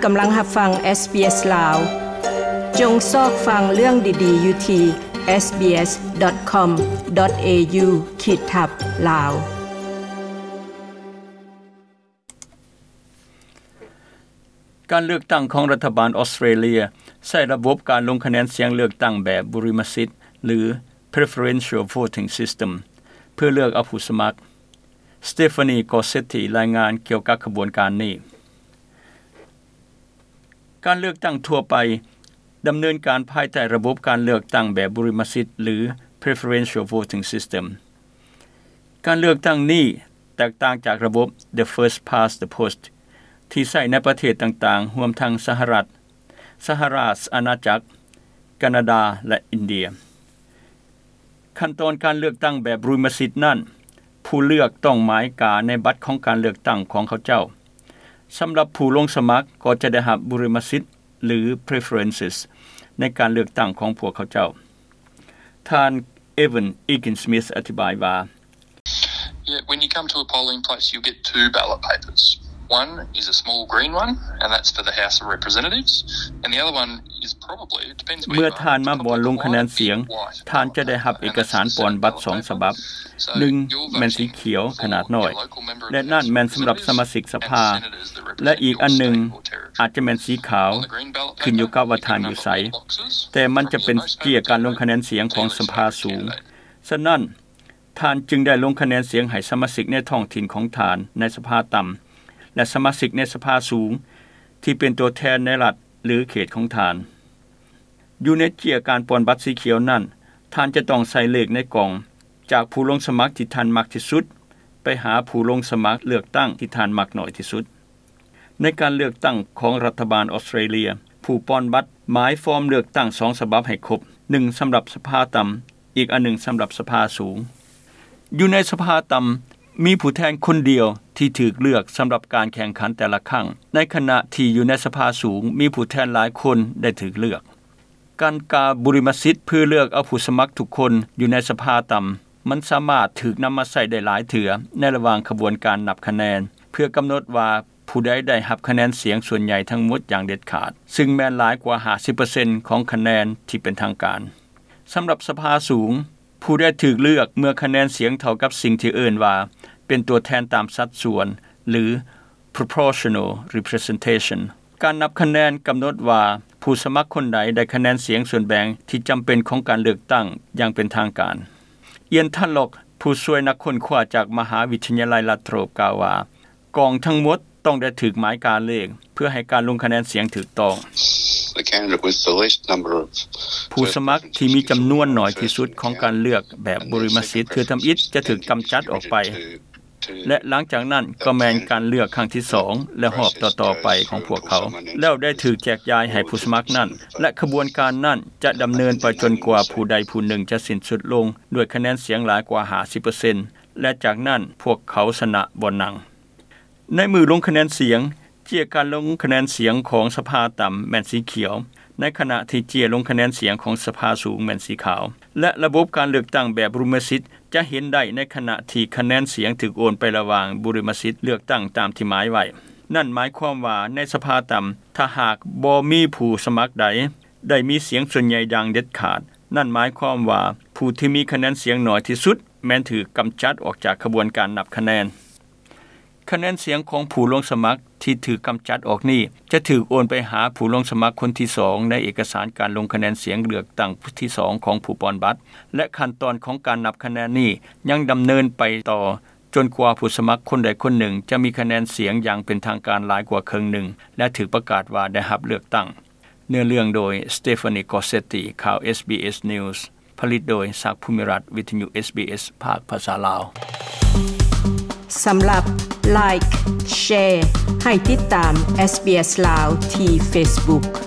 ກຳລັງຮັບຟັງ SBS ລາວ. ຈົ່ງຊອກຟັງເລື່ອງດີໆຢູ່ທີ່ SBS.com.au ຂີດທັບ ລາວ. ການເລືອກຕັ້ງຂອງລັດຖະບານອອສເຕຣເລຍໃຊ້ລະບົບການລົງຄະແນນສຽງເລືອກຕັ້ງແບບບຸລິມະສິດ ຫຼື Preferential Voting System ເພື່ອເລືອກເອົາຜູ້ສະໝັກ. Stephanie Gossetti ລາຍງານກ່ຽວກັບຂະບວນການນີ້. ການເລືອກຕັ້ງທົ່ວໄປດຳເນີນການພາຍໃຕ້ລະບົບການເລືອກຕັ້ງແບບບຸລິມະສິດ ຫຼື Preferential Voting System. ການເລືອກຕັ້ງນີ້ແຕກຕ່າງຈາກລະບົບ The First Past the Post ທີ່ໃຊ້ໃນປະເທດຕ່າງໆ ຮວມທັງສະຫະລັດ, ສະຫະລາຊອານາຈັກ, ການາດາ ແລະ ອິນເດຍ. ຂັ້ນຕອນການເລືອກຕັ້ງແບບບຸລິມະສິດນັ້ນ, ຜູ້ເລືອກຕ້ອງໝາຍກາໃນບັດຂອງການເລືອກຕັ້ງຂອງເຂົາເຈົ້າ. ສຳລັບຜູ້ລົງສະໝັກກໍຈະໄດ້ຮັບບຸລິມະສິດ ຫຼື preferences ໃນການເລືອກຕັ້ງຂອງພວກເຂົາເຈົ້າ. ທ່ານ Evan Egan-Smith ອະທິບາຍວ່າ, Yeah, when you come to a polling place, you'll get two ballot papers. One is a small green one, and that's for the House of Representatives, and the other one is probably, it depends where you are, ເມື່ອທ່ານມາບ່ອນລົງຄະແນນສຽງ, ທ່ານຈະໄດ້ຮັບເອກະສານປ່ອນບັດສອງສະບັບ. ໜຶ່ງແມ່ນສີຂຽວຂະໜາດນ້ອຍ ແລະ ນັ້ນແມ່ນສຳລັບສະມາຊິກສະພາ ແລະ ອີກອັນໜຶ່ງອາດຈະແມ່ນສີຂາວ, ຂຶ້ນຢູ່ກັບວ່າທ່ານຢູ່ໃສ, ແຕ່ມັນຈະເປັນເຈ້ຍການລົງຄະແນນສຽງຂອງສະພາສູງ. ສະນັ້ນ, ທ່ານຈຶ່ງໄດ້ລົງຄະແນນສຽງໃຫ້ສະມາຊິກໃນທ້ອງຖິ່ນຂອງທ່ານໃນສະພາຕ່ຳ ແລະ ສະມາຊິກໃນສະພາສູງທີ່ເປັນຕົວແທນໃນລັດ ຫຼື ເຂດຂອງທ່ານ. ຢູ່ໃນເຈ້ຍການປ່ອນບັດສີຂຽວນັ້ນ, ທ່ານຈະຕ້ອງໃສ່ເລກໃນກ່ອງ ຈາກຜູ້ລົງສະໝັກທີ່ທ່ານມັກທີ່ສຸດ ໄປຫາຜູ້ລົງສະໝັກເລືອກຕັ້ງທີ່ທ່ານມັກໜ້ອຍທີ່ສຸດ. ໃນການເລືອກຕັ້ງຂອງລັດຖະບານອອສເຕຣເລຍ, ຜູ້ປ່ອນບັດໝາຍຟອມເລືອກຕັ້ງສອງສະບັບໃຫ້ຄົບ, ໜຶ່ງສຳລັບສະພາຕ່ຳ, ອີກອັນໜຶ່ງສຳລັບສະພາສູງ. ຢູ່ໃນສະພາຕ່ຳ, ມີຜູ້ແທນຄົນດຽວທີ່ຖືກເລືອກສຳລັບການແຂ່ງຂັນແຕ່ລະຄັ້ງ, ໃນຂະນະທີ່ຢູ່ໃນສະພາສູງ ມີຜູ້ແທນຫຼາຍຄົນໄດ້ຖືກເລືອກ. ການກາບຸລິມະສິດເພື່ອເລືອກເອົາຜູ້ສະໝັກທຸກຄົນຢູ່ໃນສະພາຕ່ຳ, ມັນສາມາດຖືກນຳມາໃຊ້ໄດ້ຫຼາຍເທື່ອໃນລະຫວ່າງຂະບວນການນັບຄະແນນ ເພື່ອກຳນົດວ່າຜູ້ໃດໄດ້ຮັບຄະແນນສຽງສ່ວນໃຫຍ່ທັງໝົດຢ່າງເດັດຂາດ, ຊຶ່ງແມ່ນຫຼາຍກວ່າຫ້າສິບເປີເຊັນຂອງຄະແນນທີ່ເປັນທາງການ. ສຳລັບສະພາສູງ, ຜູ້ໄດ້ຖືກເລືອກເມື່ອຄະແນນສຽງເທົ່າກັບສິ່ງທີ່ເອີ້ນວ່າເປັນຕົວແທນຕາມສັດສ່ວນ ຫຼື proportional representation. ການນັບຄະແນນກຳນົດວ່າຜູ້ສະໝັກຄົນໃດໄດ້ຄະແນນສຽງສ່ວນແບ່ງທີ່ຈຳເປັນຂອງການເລືອກຕັ້ງຢ່າງເປັນທາງການ. ອຽນ ທັນລັອກ ຜູ້ຊ່ວຍນັກຄົ້ນຄວ້າຈາກມະຫາວິທະຍາໄລລັດໂທຣບ ກ່າວວ່າ, ກອງທັງໝົດຕ້ອງໄດ້ຖືກໝາຍກາເລກ ເພື່ອໃຫ້ການລົງຄະແນນສຽງຖືກຕ້ອງ. The candidate with the least number of ຜູ້ສະໝັກທີ່ມີຈຳນວນໜ້ອຍທີ່ສຸດຂອງການເລືອກແບບບຸລິມະສິດເທື່ອທຳອິດຈະຖືກກຳຈັດອອກໄປ ແລະ ຫຼັງຈາກນັ້ນກໍແມ່ນການເລືອກຄັ້ງທີສອງ ແລະ ຮອບຕໍ່ໆໄປຂອງພວກເຂົາ ແລ້ວໄດ້ຖືກແຈກຢາຍໃຫ້ຜູ້ສະໝັກນັ້ນ ແລະ ຂະບວນການນັ້ນຈະດຳເນີນໄປຈົນກວ່າຜູ້ໃດຜູ້ໜຶ່ງຈະສິ້ນສຸດລົງດ້ວຍຄະແນນສຽງຫຼາຍກວ່າຫ້າສິບເປີເຊັນ ແລະ ຈາກນັ້ນພວກເຂົາຊະນະບ່ອນນັ່ງ. ໃນມື້ລົງຄະແນນສຽງ, ເຈ້ຍການລົງຄະແນນສຽງຂອງສະພາຕ່ຳແມ່ນສີຂຽວ, ໃນຂະນະທີ່ເຈ້ຍລົງຄະແນນສຽງຂອງສະພາສູງແມ່ນສີຂາວ ແລະ ລະບົບການເລືອກຕັ້ງແບບບຸລິມະສິດຈະເຫັນໄດ້ໃນຂະນະທີ່ຄະແນນສຽງຖືກໂອນໄປລະຫວ່າງບຸລິມະສິດເລືອກຕັ້ງຕາມທີ່ໝາຍໄວ້. ນັ້ນໝາຍຄວາມວ່າໃນສະພາຕ່ຳ, ຖ້າຫາກບໍ່ມີຜູ້ສະໝັກໃດໄດ້ມີສຽງສ່ວນໃຫຍ່ຢ່າງເດັດຂາດ, ນັ້ນໝາຍຄວາມວ່າຜູ້ທີ່ມີຄະແນນສຽງໜ້ອຍທີ່ສຸດແມ່ນຖືກກຳຈັດອອກຈາກຂະບວນການນັບຄະແນນ. ຄະແນນສຽງຂອງຜູ້ລົງສະໝັກທີ່ຖືກກຳຈັດອອກນີ້ ຈະຖືກໂອນໄປຫາຜູ້ລົງສະໝັກຄົນທີສອງໃນເອກະສານການລົງຄະແນນສຽງເລືອກຕັ້ງທີສອງຂອງຜູ້ປ່ອນບັດ ແລະ ຂັ້ນຕອນຂອງການນັບຄະແນນນີ້ຍັງດຳເນີນໄປຕໍ່ຈົນກວ່າຜູ້ສະໝັກຄົນໃດຄົນໜຶ່ງຈະມີຄະແນນສຽງຢ່າງເປັນທາງການຫຼາຍກວ່າເຄິ່ງໜຶ່ງ ແລະ ຖືກປະກາດວ່າໄດ້ຮັບເລືອກຕັ້ງ. ເນື້ອເລື່ອງໂດຍ Stephanie Gossetti ຂ່າວ SBS News. ຜະລິດໂດຍ ສັກ ພູມິລັດ, ວິທະຍຸ SBS ພາກພາສາລາວ. ສຳລັບ Like, Share ໃຫ້ຕິດຕາມ SBS ລາວທີ່ Facebook.